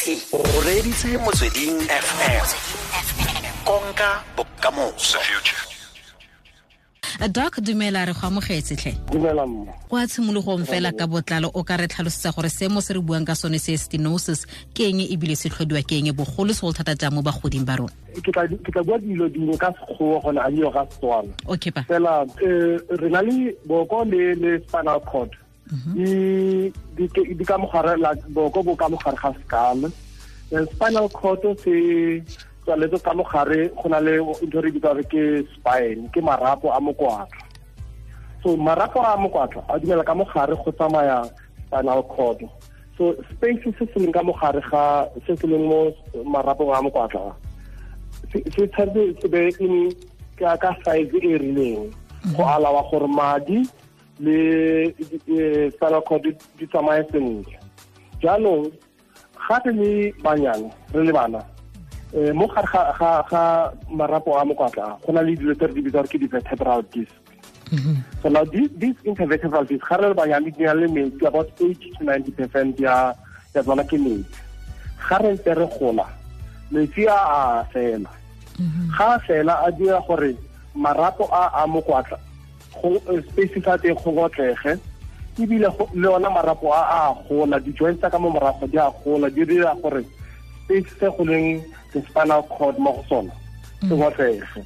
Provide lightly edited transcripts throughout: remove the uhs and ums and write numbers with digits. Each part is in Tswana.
O reditse Motsweding FM, konka bokamoso. Doc, dumela, re go amogetse tlhe. Dumela mma. Kwa tshimologong fela ka botlalo, o ka re tlhalosetsa gore seemo se re buang ka sone se stenosis ke eng, ebile se tlhodiwa ke eng, bogolo segolo thata jang mo bagoding ba rona? Ke tla bua dilo dingwe ka Sekgowa gone, a dio ka Setswana. Okay pa. Fela re na le boko le spinal cord di ka mogare la boko, bo ka mogare ga skull. Spinal cord se tswaletse ka mogare, go na le ntho re bitsa re ke spine, ke marapo a mokwatla. So marapo a mokwatla a dumela ka mogare go tsamaya spinal cord. So space se se leng ka mogare ga se se leng mo marapong a mokwatla se tshwanetse se be in ka size e rileng go alawa gore madi le spinal cord di tsamaye sentle. Jaanong ga re le banyane, re le bana, mo gare ga marapo a mokwatla go na le dilo tse re di bitsa gore ke di-vertebral disc. So now these intervertebral disc, ga re le banyane, di na le metsi, about 80 to 90% ya tsona ke metsi. Ga re ntse re gola, metsi a a fela. Ga a fela, a dira gore marapo a mokwatla go space sa teng go ngotlege, ebile le ona marapo a a gola, di-joints tsa ka mo morago di a gola, di dira gore space se go leng the spinal cord mo go sona se ngotlege.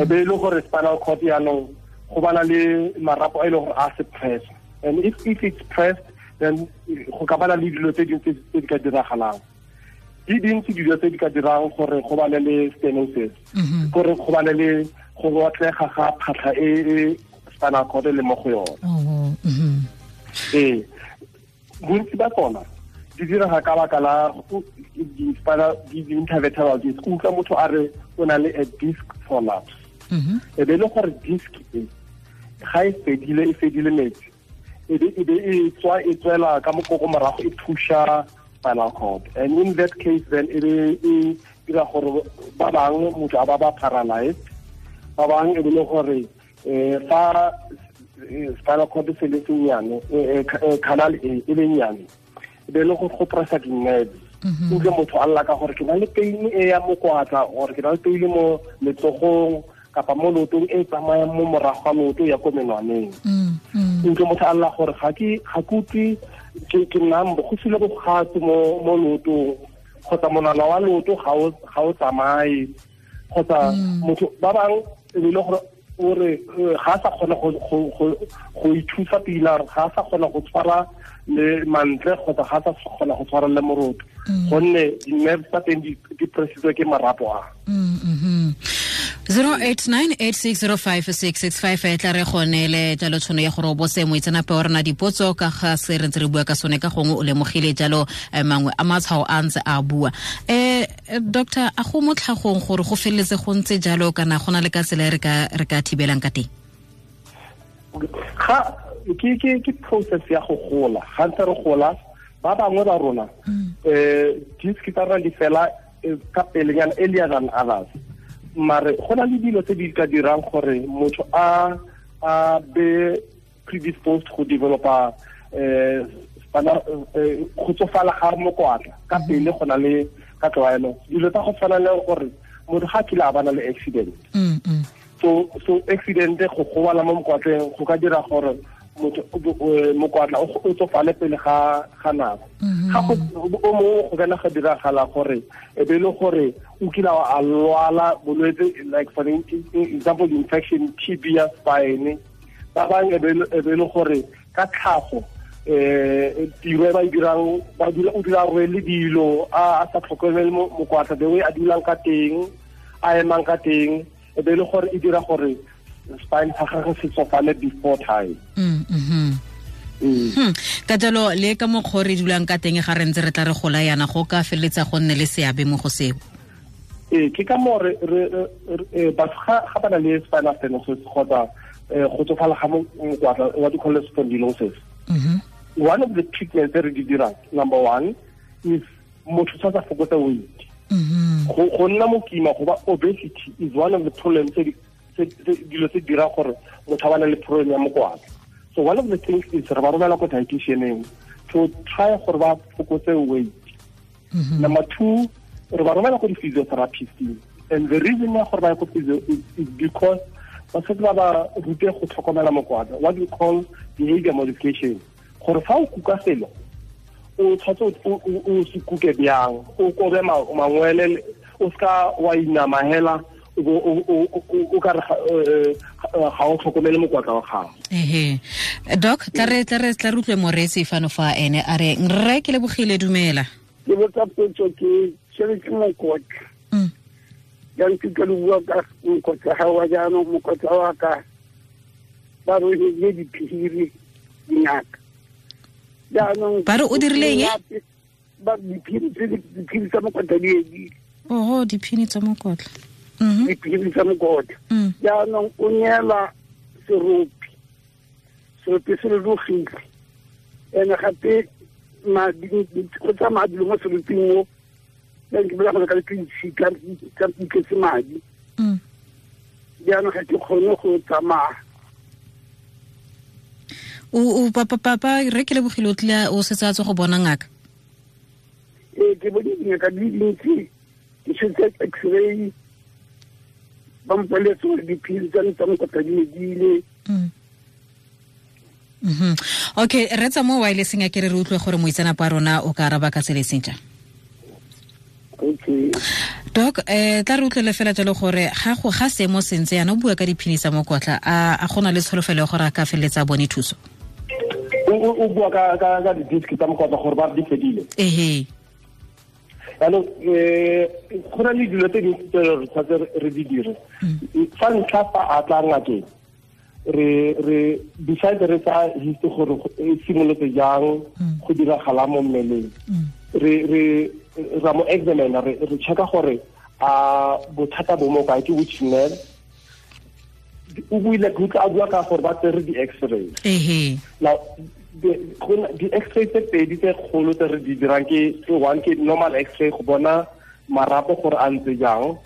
E be e le gore spinal cord yaanong go bana le marapo a e leng gore a se press, and if it's pressed, then go ka bana le dilo tse dingwe tse di ka diragalang. Di dintsi dilo tse di ka dirang gore go bane le stenosis, gore go bane le go ngotlega ga phatlha e e spinal cord e le mo go yone. Ee, bontsi ba tsona di direga ka baka la di-spinal di-intervertebral disc. O utlwa motho a re o na le a disc prolapse. E be e le gore disc e ga e fedile, e fedile metsi, e be e tswa, e tswela ka mokoko morago, e pusha spinal cord, and in that case then e be e dira gore ba bangwe motho a ba paralyzed. Ba bangwe e be le gore fa spinal cord se le sennyane, canal e e le nnyane, e be le go pressa di-nerves. Utlwe motho a lla ka gore ke na le pain e ya mokwatla, or ke na le pain mo letsogong kapa mo leotong e tsamayang mo morago ga leoto ya ko menwaneng. Utlwe motho a lla gore ga ke utlwe, ke numb, go sile bogatse mo leotong, kgotsa monwana wa leoto ga o tsamaye, kgotsa motho ba bang e be le gore o re ga a sa kgona go ithusa pila, ga a sa kgona go tshwara le mantle, kgotsa ga a sa kgona go tshwara le moroto, gonne di-nerves tsa teng di pressitswe ke marapo a. 0898605665 e tla re gonele jalo tshono ya gore o botse moitseanape wa rona dipotso ka ga se re ntse re bua ka sone. Ka gongwe o lemogile jalo mangwe a matshwao a ntse a bua. Doctor, a go mo tlhagong gore go feleletse go ntse jalo, kana go na le ka tsela e re ka thibelang ka teng? Ga ke process ya go gola. Ga ntse re gola, ba bangwe ba rona disc tsa rona di fela ka pelenyana, earlier than others. Mare go na le dilo tse di ka dirang gore motho a be predisposed go developa spinal go tsofala ga mokwatla ka pele. Go na le ka tlwaelo dilo tsa go tshwana le gore motho ga a kile a bana le accident. So accident, go gobala mo mokwatleng, go ka dira gore motho mokwatla o tsofale pele ga nako. Ga go o mongwe go kana ga diragala gore e be e le gore o kile a lwala bolwetse, like for example infection, TB ya spine. Ba bangwe e be le gore ka tlhago tiro e ba e dirang, ba dula, o dula a rwele dilo, a sa tlhokomele mokwatla, the way a dulang ka teng, a emang ka teng, e be e le gore e dira gore spine sa gagwe se tsofale before time. Ka jalo le ka mokgwa o re dulang ka teng ga re ntse re tla re gola yana, go ka feleletsa go nne le seabe mo go seo. Ee, ke ka moo batho ga ba na le spinal stenosis kgotsa go tsofala ga mokwatla, what you call spondylosis, one of the treatments tse re di dirang, number one is motho tshwanetse a fokotse weight. Go nna mokima, go ba obesity is one of the problems tse dilo tse dirang gore motho a bana le problem ya mokwatla. So one of the things is re ba romela ko dietitianeng to try gore ba fokotse weight. Number 2, re ba romela ko di-physiotherapist. And the reason ya gore ba ye ko physio is because ba setse ba ba rute go tlhokomela mokwatla, what we call behavior modification. Gore fa o kuka selo, o tshwanetse o se kuke bjang, o kobe mangwele, o seka wa inama hela, o ka re ga o tlhokomele mokwatla wa gago. Ehe. Doc, tla re utlwe moreetsi fano fa ene a re rre ke lebogile, dumela. Ke botsa potso, ke tshwere ke mokotla. Jaanong ke tlo bua ka mokotla ga wa jaanong, mokotla wa ka ba rohile diphiri dingaka. Jaanong ba re o dirile eng? Ba diphiri tsa mokotla di edile. Oho, diphiri tsa mokotla. Diphiri tsa mokotla. Jaanong o neela seropi se rurugile. Ene gape madi go tsamaya dilo mo seroping mo, ke bolela gore ka ditshika ka tletse madi. Jaanong ga ke kgone go tsamaya. O papa re ke lebogile, o tlile o setse a tswa go bona ngaka? Ee, ke bone dingaka di dintsi, ke tshotse x-ray, ba mpoleletse gore diphiri tsa me tsa mokotla di medile. Okay, re tsa mo wirelesseng a ke re utlwe gore moitseanape wa rona o ka araba ka tsela e seng jang. Okay. Doc, tla re utlwele fela jalo gore ga seemo sentse yana o bua ka diphini tsa mokotla, a gona le tsholofelo ya gore a ka feleletsa a bone thuso? O bua ka di-disc tsa mokotla gore ba di fedile? Ehe. Jaanong go na le dilo tse dintsi tse re tshwanetse re di dire. Fa ntlha fa a tla ngakeng, re besides re tsa history gore e simolotse jang go diragala mo mmeleng, re ra mo examine, re checka gore a bothata bo mo kae, ke which nerve. O buile ke utlwa a bua ka gore ba tsere di-x-ray. Ehe. Now di-x-ray tse pedi tse kgolo tse re di dirang ke one ke normal x-ray go bona marapo gore a ntse jang,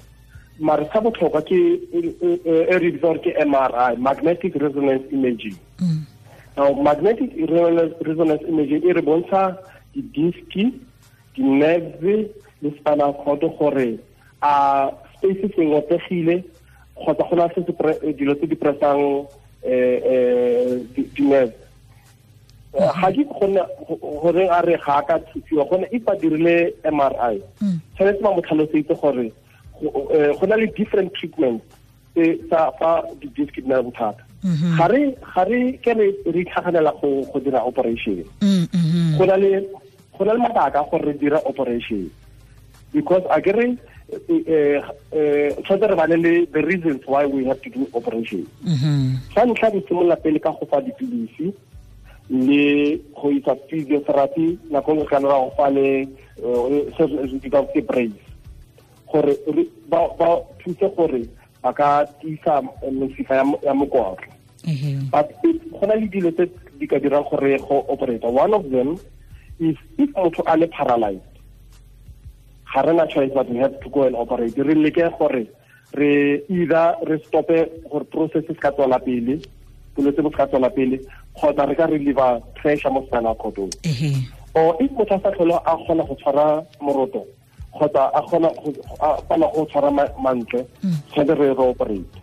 mare sa botlhokwa ke e re bitsa gore ke MRI, magnetic resonance imaging. Now magnetic resonance imaging e re bontsha di-disc, di-nerves le spinal cord gore a space se ngotlegile kgotsa go na se dilo tse di pressang di-nerve. Ga ke gonne gore a re ga a ka thusiwa, gonne if ba dirile MRI, tshwanetse ba mo tlhalosetse gore go na le different treatment tsa fa di-disc di na le bothata. Ga re ke re itlhaganela go dira operation. Go na le mabaka gore re dira operation, because a ke re tshwanetse re bane le the reasons why we have to do operation. Sa ntlha re simolola pele ka go fa dipilisi le go isa physiotherapy, nako nngwe kana ra go fa le se re bitsang ke brace, gore ba thuse gore ba ka tiisa mesifa ya mokotla. But go na le dilo tse di ka dirang gore go operate. One of them is if motho a le paralyzed, ga re na choice but we have to go and operate. Re leke gore re either re stope gore process se ka tswela pele, bolwetse bo se ka tswela pele, kgotsa re ka reliever pressure mo spinal cord-ong. Or if motho a sa tlhole a kgona go tshwara moroto kgotsa a kgona go tshwara mantle, tshwanetse re operate.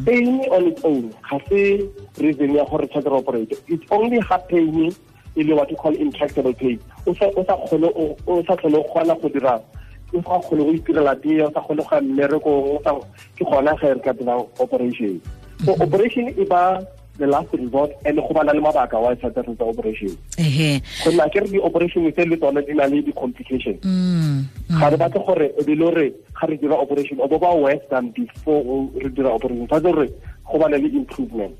Pain on its own ga se reason ya gore tshwanetse re operate. It's only ha pain e le what you call intractable pain, o sa kgone o sa tlhole o kgona go dira, o sa kgone go itirela tee, o sa kgone go ya mmerekong, ke gona ge re ka dirang operation. So operation e ba the last resort, and go bana le mabaka wa tshwanetse re tsa operation. Gonne a ke re di-operation tse le tsone di na le di-complications. Ga re batle gore e be le gore ga re dira operation o bo ba worse than before re dira operation, tshwanetse gore go bane le improvement.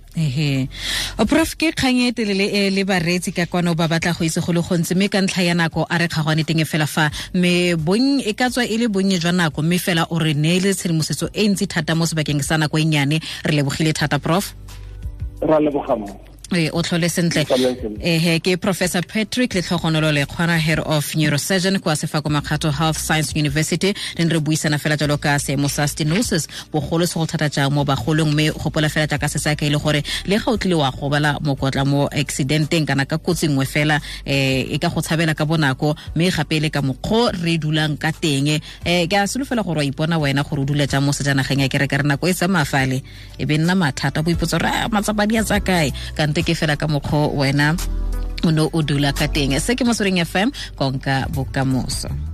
Prof, ke kgang e telele e le bareetsi ka kwano ba batla go itse go le gontsi, mme ka ntlha ya nako a re kgagwane teng fela fa, mme bonnye e ka tswa e le bonnye jwa nako, mme fela o re neele tshedimosetso e ntsi thata mo sebakeng sa nako e nnyane. Re lebogile thata, Prof. Ra leboga mo. E o tlhole sentle. Ehe, ke Professor Patrick Letlhogonolo Lekgwana, head of neurosurgeon kwa Sefako Makgatho Health Science University. Re ne re buisana fela jalo ka seemo sa stenosis, bogolo se go thata jang mo bagolong, mme gopola fela jaaka se sa ka e le gore le ga o tlile wa gobala mokotla mo accidenteng kana ka kotsi nngwe fela, e ka go tshabela ka bonako, mme gape le ka mokgwa re dulang ka teng. Ke a solofela gore wa ipona wena gore o dula jang mo sejanageng ya kereke, re nako e tsamaya fale e be nna mathata, bo ipotsa gore matsapa di a tsa kae, kante ke fela ka mokgwa wena o ne o dula ka teng. Se ke Motsweding FM, konka bokamoso.